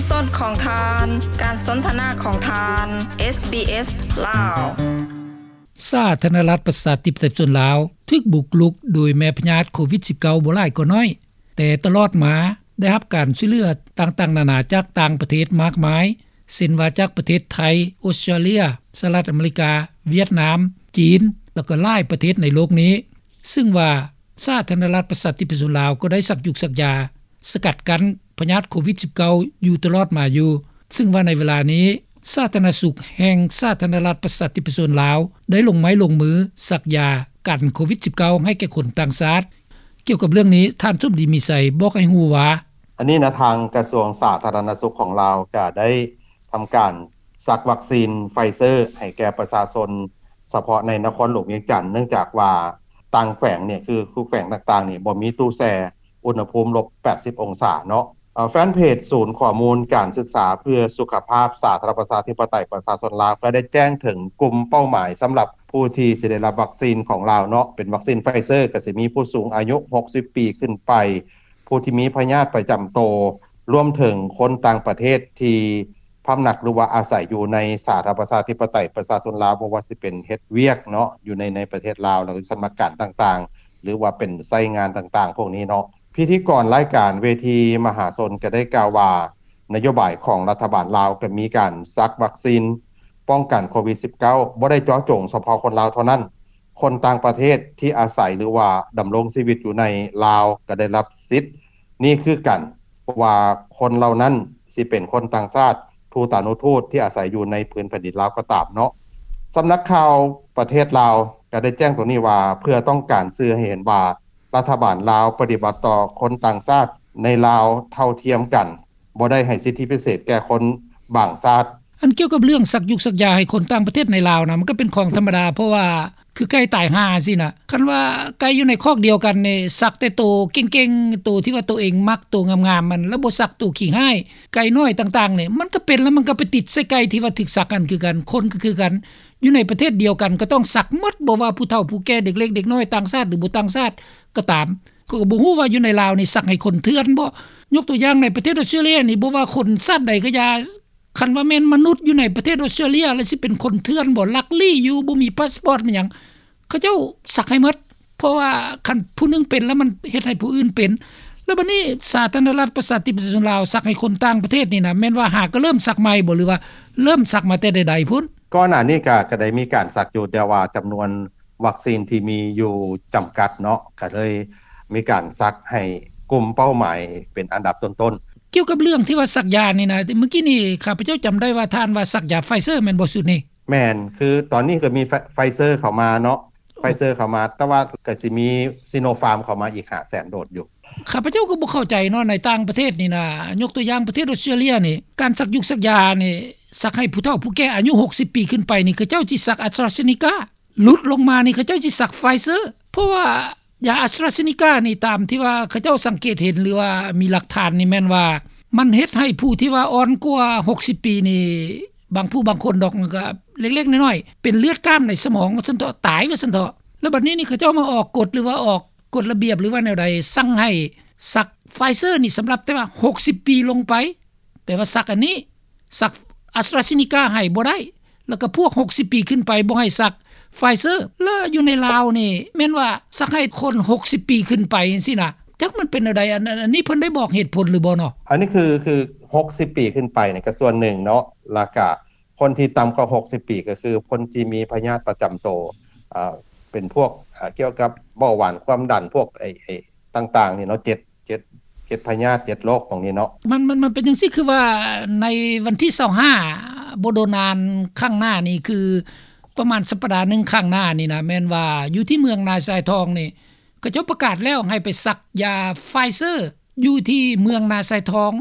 ສອດຂອງທ່ານ ການສົນທະນາຂອງທ່ານ ເອສບີເອສ ລາວ. ສາທາລະນະລັດ ປະຊາທິປະໄຕ ປະຊາຊົນລາວ ຖືກບຸກລຸກໂດຍແມ່ພະຍາດໂຄວິດ-19 ບໍ່ຫຼາຍກໍໜ້ອຍ, ແຕ່ຕະຫຼອດມາໄດ້ຮັບການຊ່ວຍເຫຼືອຕ່າງໆນານາຈາກຕ່າງປະເທດມາກມາຍ, ເຊັ່ນວ່າຈາກປະເທດໄທ, ອົດສະຕຣາເລຍ, ສະຫະລັດອາເມລິກາ, ຫວຽດນາມ, ຈີນ ແລ້ວກໍຫຼາຍປະເທດໃນໂລກນີ້, ຊຶ່ງວ່າສາທາລະນະລັດ ປະຊາທິປະໄຕ ປະຊາຊົນລາວ ກໍໄດ້ສັກຢູກສັກຢາ ສະກັດກັ້ນພະຍາດໂຄວິດ-19 ຢູ່ຕະຫຼອດມາຢູ່, ຊຶ່ງວ່າໃນເວລານີ້ ສາທາລະນະສຸກແຫ່ງສາທາລະນະລັດ ປະຊາທິປະໄຕ ປະຊາຊົນລາວ ໄດ້ລົງໄມ້ລົງມືສັກຢາກັນໂຄວິດ-19 ໃຫ້ແກ່ຄົນຕ່າງຊາດ. ກ່ຽວກັບເລື່ອງນີ້ ທ່ານ ສົມດີ ມີໄຊ ບອກໃຫ້ຮູ້ວ່າ: ອັນນີ້ນະ ທາງກະຊວງສາທາລະນະສຸກຂອງລາວ ກະໄດ້ທຳການສັກວັກຊີນໄຟເຊີໃຫ້ແກ່ປະຊາຊົນ ສະເພາະໃນນະຄອນຫຼວງວຽງຈັນ, ເນື່ອງຈາກວ່າຕ່າງແຂວງນີ້ ຄື ຄືແຂວງຕ່າງໆນີ້ ບໍ່ມີຕູ້ແຊ່ ອຸນຫະພູມລົບແປດສິບອົງສາເນາະ. ເອີ ແຟນເພຈສູນຂໍ້ມູນການສຶກສາເພື່ອສຸຂະພາບສາທາລະນະລັດ ປະຊາທິປະໄຕ ປະຊາຊົນລາວ ກໍໄດ້ແຈ້ງເຖິງກຸ່ມເປົ້າໝາຍສຳລັບຜູ້ທີ່ຊິໄດ້ຮັບວັກຊີນຂອງລາວເນາະ, ເປັນວັກຊີນໄຟເຊີ ກໍຊິມີຜູ້ສູງອາຍຸ ຫົກສິບປີຂຶ້ນໄປ, ຜູ້ທີ່ມີພະຍາດປະຈຳໂຕ, ລວມເຖິງຄົນຕ່າງປະເທດທີ່ພຳນັກ ຫຼືວ່າອາໄສຢູ່ໃນສາທາລະນະລັດ ປະຊາທິປະໄຕ ປະຊາຊົນລາວ, ບໍ່ວ່າຊິເປັນເຮັດວຽກເນາະ ຢູ່ໃນ ໃນປະເທດລາວ ແລ້ວກໍສຳນັກງານຕ່າງໆ ຫຼືວ່າເປັນໃຊ້ງານຕ່າງໆພວກນີ້ເນາະ. ພິທີກອນລາຍການເວທີມະຫາຊົນກໍໄດ້ກ່າວວ່າ ນະໂຍບາຍຂອງລັດຖະບານລາວກໍມີການສັກວັກຊີນປ້ອງກັນໂຄວິດ-19 ບໍ່ໄດ້ເຈາະຈົງສະເພາະຄົນລາວເທົ່ານັ້ນ, ຄົນຕ່າງປະເທດທີ່ອາໄສ ຫຼືວ່າດຳລົງຊີວິດຢູ່ໃນລາວກໍໄດ້ຮັບສິດນີ້ຄືກັນ, ບໍ່ວ່າຄົນເຫຼົ່ານັ້ນຊິເປັນຄົນຕ່າງຊາດ, ທູຕານຸທູດທີ່ອາໄສຢູ່ໃນພື້ນແຜ່ນດິນລາວກໍຕາມເນາະ. ສຳນັກຂ່າວປະເທດລາວກໍໄດ້ແຈ້ງຕົງນີ້ວ່າ ເພື່ອຕ້ອງການສື່ໃຫ້ເຫັນວ່າ ລັດຖະບານລາວປະຕິບັດຕໍ່ຄົນຕ່າງຊາດໃນລາວເທົ່າທຽມກັນ, ບໍ່ໄດ້ໃຫ້ສິດທິພິເສດແກ່ຄົນບາງຊາດ. ອັນກ່ຽວກັບເລື່ອງສັກຢູກສັກຢາໃຫ້ຄົນຕ່າງປະເທດໃນລາວນະ ມັນກໍເປັນຂອງທຳມະດາ, ເພາະວ່າຄືໄກ່ຕາຍຫ່າຊີ້ນະ, ຄັນວ່າໄກ່ຢູ່ໃນຄອກດຽວກັນນີ້ ສັກແຕ່ໂຕເກັ່ງໆ, ໂຕທີ່ວ່າໂຕເອງມັກ, ໂຕງາມໆ ມັນ ແລ້ວບໍ່ສັກໂຕຂີ້ຮ້າຍ, ໄກ່ນ້ອຍຕ່າງໆນີ້ ມັນກໍເປັນ ແລ້ວມັນກໍໄປຕິດໃສ່ໄກ່ທີ່ວ່າຖືກສັກຫັ້ນຄືກັນ, ຄົນກໍຄືກັນ. ຢູ່ໃນປະເທດດຽວກັນກໍຕ້ອງສັກໝົດ, ບໍ່ວ່າຜູ້ເຖົ້າຜູ້ແກ່, ເດັກເລັກເດັກນ້ອຍ, ຕ່າງຊາດ ຫຼື ບໍ່ຕ່າງຊາດກໍຕາມ. ຂ້ອຍກໍບໍ່ຮູ້ວ່າຢູ່ໃນລາວນີ້ສັກໃຫ້ຄົນເຖື່ອນບໍ່? ຍົກຕົວຢ່າງໃນປະເທດອົດສະຕຣາເລຍນີ້ ບໍ່ວ່າຄົນຊາດໃດກໍຢ່າ, ຄັນວ່າແມ່ນມະນຸດຢູ່ໃນປະເທດອົດສະຕຣາເລຍ ແລ້ວຊິເປັນຄົນເຖື່ອນບໍ່? ລັກລີ້ຢູ່, ບໍ່ມີພາສປອດ ມີຫຍັງ, ເຂົາເຈົ້າສັກໃຫ້ໝົດ. ເພາະວ່າຄັນຜູ້ໜຶ່ງເປັນແລ້ວ ມັນເຮັດໃຫ້ຜູ້ອື່ນເປັນ. ແລ້ວບັດນີ້ສາທາລະນະລັດ ປະຊາທິປະໄຕ ປະຊາຊົນລາວ ສັກໃຫ້ຄົນຕ່າງປະເທດນີ້ນະ ແມ່ນວ່າຫາກໍເລີ່ມສັກໃໝ່ບໍ່ ຫຼືວ່າເລີ່ມສັກມາແຕ່ໃດໆພຸ້ນ? ກ່ອນໜ້ານີ້ກະ ກະໄດ້ມີການສັກຢູ່, ແຕ່ວ່າຈຳນວນວັກຊີນທີ່ມີຢູ່ຈຳກັດເນາະ, ກະເລີຍມີການສັກໃຫ້ກຸ່ມເປົ້າໝາຍເປັນອັນດັບຕົ້ນໆ. ກ່ຽວກັບເລື່ອງທີ່ວ່າສັກຢານີ້ນະ, ມື້ກີ້ນີ້ຂ້າພະເຈົ້າຈຳໄດ້ວ່າທ່ານວ່າສັກຢາໄຟເຊີແມ່ນບໍ່ຊຸດນີ້? ແມ່ນ, ຄືຕອນນີ້ກໍມີໄຟ ໄຟເຊີເຂົ້າມາເນາະ, ໄຟເຊີເຂົ້າມາ, ແຕ່ວ່າກໍຊິມີຊີໂນຟາມເຂົ້າມາອີກຫ້າແສນໂດດຢູ່. ຂ້າພະເຈົ້າກໍບໍ່ເຂົ້າໃຈເນາະ, ໃນຕ່າງປະເທດນີ້ນະ, ຍົກຕົວຢ່າງປະເທດອົດສະຕຣາເລຍນີ້, ການສັກຍຸກສັກຢານີ້, ສັກໃຫ້ຜູ້ເຖົ້າຜູ້ແກ່ອາຍຸຫົກສິບປີຂຶ້ນໄປນີ້, ເຂົາເຈົ້າຊິສັກອາສຕຣາເຊນິກາ, ຫຼຸດລົງມານີ້ ເຂົາເຈົ້າຊິສັກໄຟເຊີ, ເພາະວ່າຢາອາສຕຣາເຊນິການີ້, ຕາມທີ່ວ່າເຂົາເຈົ້າສັງເກດເຫັນ ຫຼືວ່າມີຫຼັກຖານນີ້, ແມ່ນວ່າມັນເຮັດໃຫ້ຜູ້ທີ່ວ່າອ່ອນກວ່າຫົກສິບປີນີ້, ບາງຜູ້ບາງຄົນດອກ, ມັນກໍເລັກໆນ້ອຍໆ, ເປັນເລືອດກ້າມໃນສະໝອງວ່າຊັ້ນເຖາະ, ຕາຍວ່າຊັ້ນເຖາະ. ແລ້ວບັດນີ້ນີ້ ເຂົາເຈົ້າມາອອກກົດ ຫຼືວ່າອອກ ກົດລະບຽບ ຫຼືວ່າແນວໃດ, ສັ່ງໃຫ້ສັກໄຟເຊີນີ້ສຳລັບແຕ່ວ່າຫົກສິບປີລົງໄປ, ແປວ່າສັກອັນນີ້, ສັກອາສຕຣາເຊນິກາໃຫ້ບໍ່ໄດ້, ແລ້ວກໍພວກຫົກສິບປີຂຶ້ນໄປບໍ່ໃຫ້ສັກໄຟເຊີ. ແລ້ວຢູ່ໃນລາວນີ້ແມ່ນວ່າສັກໃຫ້ຄົນຫົກສິບປີຂຶ້ນໄປຈັ່ງຊີ້ນະ, ຈັກມັນເປັນແນວໃດ? ອັນ ອັນ ອັນນີ້ເພິ່ນໄດ້ບອກເຫດຜົນຫຼືບໍ່ເນາະ? ອັນນີ້ຄື ຄືຫົກສິບປີຂຶ້ນໄປນີ້ກໍສ່ວນໜຶ່ງເນາະ, ແລ້ວກໍ ຄົນທີ່ຕ່ຳກວ່າຫົກສິບປີ ກໍຄືຄົນທີ່ມີພະຍາດປະຈຳໂຕ, ເປັນພວກ ອາ ກ່ຽວກັບເບົາຫວານ, ຄວາມດັນ, ພວກ ໄອ້ ໄອ້ຕ່າງໆນີ້ເນາະ, ເຈັດ ເຈັດ ເຈັດພະຍາດ, ເຈັດໂລກຂອງນີ້ເນາະ. ມັນ ມັນ ມັນເປັນຈັ່ງຊີ້, ຄືວ່າໃນວັນທີຊາວຫ້າ ບໍ່ດົນນານຂ້າງໜ້ານີ້, ຄືປະມານສັບປະດາໜຶ່ງຂ້າງໜ້ານີ້ນະ, ແມ່ນວ່າຢູ່ທີ່ເມືອງນາຊາຍທອງນີ້ ເຂົາເຈົ້າປະກາດແລ້ວໃຫ້ໄປສັກຢາໄຟເຊີຢູ່ທີ່ເມືອງນາຊາຍທອງ.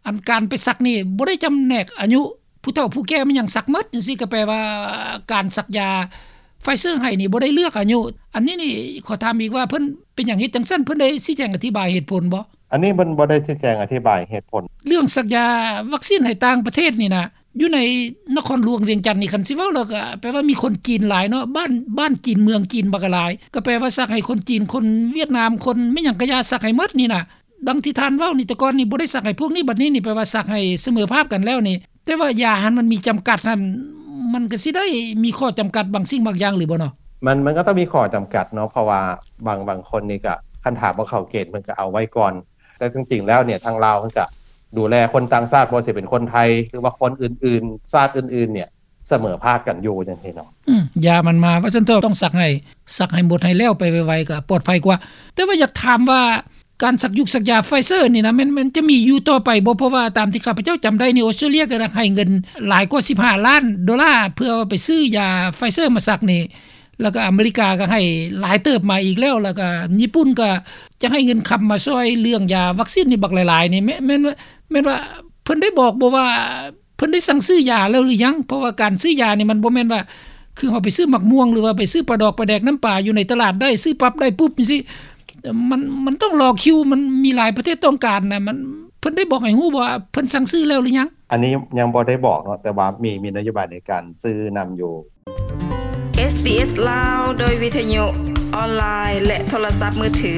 ອັນການໄປສັກນີ້ບໍ່ໄດ້ຈຳແນກອາຍຸ, ຜູ້ເຖົ້າຜູ້ແກ່ແມ່ນຫຍັງສັກໝົດຈັ່ງຊີ້, ກໍແປວ່າການສັກຢາໄຟເຊີໃຫ້ນີ້ບໍ່ໄດ້ເລືອກອາຍຸ. ອັນນີ້ນີ້ຂໍຖາມອີກວ່າ ເພິ່ນເປັນຫຍັງເຮັດຈັ່ງຊັ້ນ? ເພິ່ນໄດ້ຊີ້ແຈງອະທິບາຍເຫດຜົນບໍ່? ອັນນີ້ເພິ່ນບໍ່ໄດ້ຊີ້ແຈງອະທິບາຍເຫດຜົນ. ເລື່ອງສັກຢາວັກຊີນໃຫ້ຕ່າງປະເທດນີ້ນະ, ຢູ່ໃນນະຄອນຫຼວງວຽງຈັນນີ້, ຄັນຊິເວົ້າແລ້ວກໍແປວ່າມີຄົນຈີນຫຼາຍເນາະ, ບ້ານ ບ້ານຈີນເມືອງຈີນບັກຫຼາຍ, ກໍແປວ່າສັກໃຫ້ຄົນຈີນ, ຄົນຫວຽດນາມ, ຄົນແມ່ນຫຍັງກະຢ່າ, ສັກໃຫ້ໝົດນີ້ນະ. ດັ່ງທີ່ທ່ານເວົ້ານີ້ ແຕ່ກ່ອນນີ້ບໍ່ໄດ້ສັກໃຫ້ພວກນີ້ ບັດນີ້ນີ້ແປວ່າສັກໃຫ້ສະເໝີພາບກັນແລ້ວນີ້ ແຕ່ວ່າຢາຫັ້ນມັນມີຈຳກັດຫັ້ນ ມັນກໍຊິໄດ້ມີຂໍ້ຈຳກັດບາງສິ່ງບາງຢ່າງຫຼືບໍ່ເນາະ? ມັນ ມັນກໍຕ້ອງມີຂໍ້ຈຳກັດເນາະ ເພາະວ່າບາງ ບາງຄົນນີ້ກໍ ຄັນຖ້າບໍ່ເຂົ້າເກນເພິ່ນກໍເອົາໄວ້ກ່ອນ ແຕ່ຈິງໆແລ້ວນີ້ທາງລາວເພິ່ນກໍດູແລຄົນຕ່າງຊາດ ບໍ່ວ່າຊິເປັນຄົນໄທ ຫຼືວ່າຄົນອື່ນໆ ຊາດອື່ນໆນີ້ ສະເໝີພາບກັນຢູ່ຈັ່ງຊີ້ເນາະ. ອືມ ຢາມັນມາ ວ່າຊັ້ນເຖາະ ຕ້ອງສັກໃຫ້ ສັກໃຫ້ໝົດໃຫ້ແລ້ວໄປໄວໆ ກໍປອດໄພກວ່າ. ແຕ່ວ່າຢາກຖາມວ່າ ການສັກຢຸກສັກຢາໄຟເຊີນີ້ນະ ແມ່ນ ແມ່ນຈະມີຢູ່ຕໍ່ໄປບໍ່? ເພາະວ່າຕາມທີ່ຂ້າພະເຈົ້າຈຳໄດ້ນີ້ ອົດສະຕຣາເລັຽກໍໃຫ້ເງິນຫຼາຍກວ່າສິບຫ້າລ້ານໂດລາ ເພື່ອໄປຊື້ຢາໄຟເຊີມາສັກນີ້ ແລ້ວກໍອາເມລິກາກໍໃຫ້ຫຼາຍເຕີບມາອີກແລ້ວ ແລ້ວກໍຍີ່ປຸ່ນກໍຈະໃຫ້ເງິນຄຳມາຊ່ວຍເລື່ອງຢາວັກຊີນນີ້ບັກຫຼາຍໆນີ້ ແມ່ນ ແມ່ນວ່າ ແມ່ນວ່າເພິ່ນໄດ້ບອກບໍ່ວ່າ ເພິ່ນໄດ້ສັ່ງຊື້ຢາແລ້ວຫຼືຍັງ? ເພາະວ່າການຊື້ຢານີ້ມັນບໍ່ແມ່ນວ່າ ຄືເຮົາໄປຊື້ໝາກມ່ວງ ຫຼືວ່າໄປຊື້ປາດອກປາແດກນ້ຳປາຢູ່ໃນຕະຫຼາດໄດ້ ຊື້ປັບໄດ້ປຸບຈັ່ງຊີ້ ມັນ ມັນຕ້ອງລໍຄິວ ມັນມີຫຼາຍປະເທດຕ້ອງການນະ ມັນ ເພິ່ນໄດ້ບອກໃຫ້ຮູ້ບໍ່ວ່າເພິ່ນສັ່ງຊື້ແລ້ວຫຼືຍັງ? ອັນນີ້ຍັງບໍ່ໄດ້ບອກເນາະ ແຕ່ວ່າມີ ມີນະໂຍບາຍໃນການຊື້ນຳຢູ່. ເອສບີເອສ ລາວ ໂດຍວິທະຍຸອອນລາຍ ແລະ ໂທລະສັບມືຖື.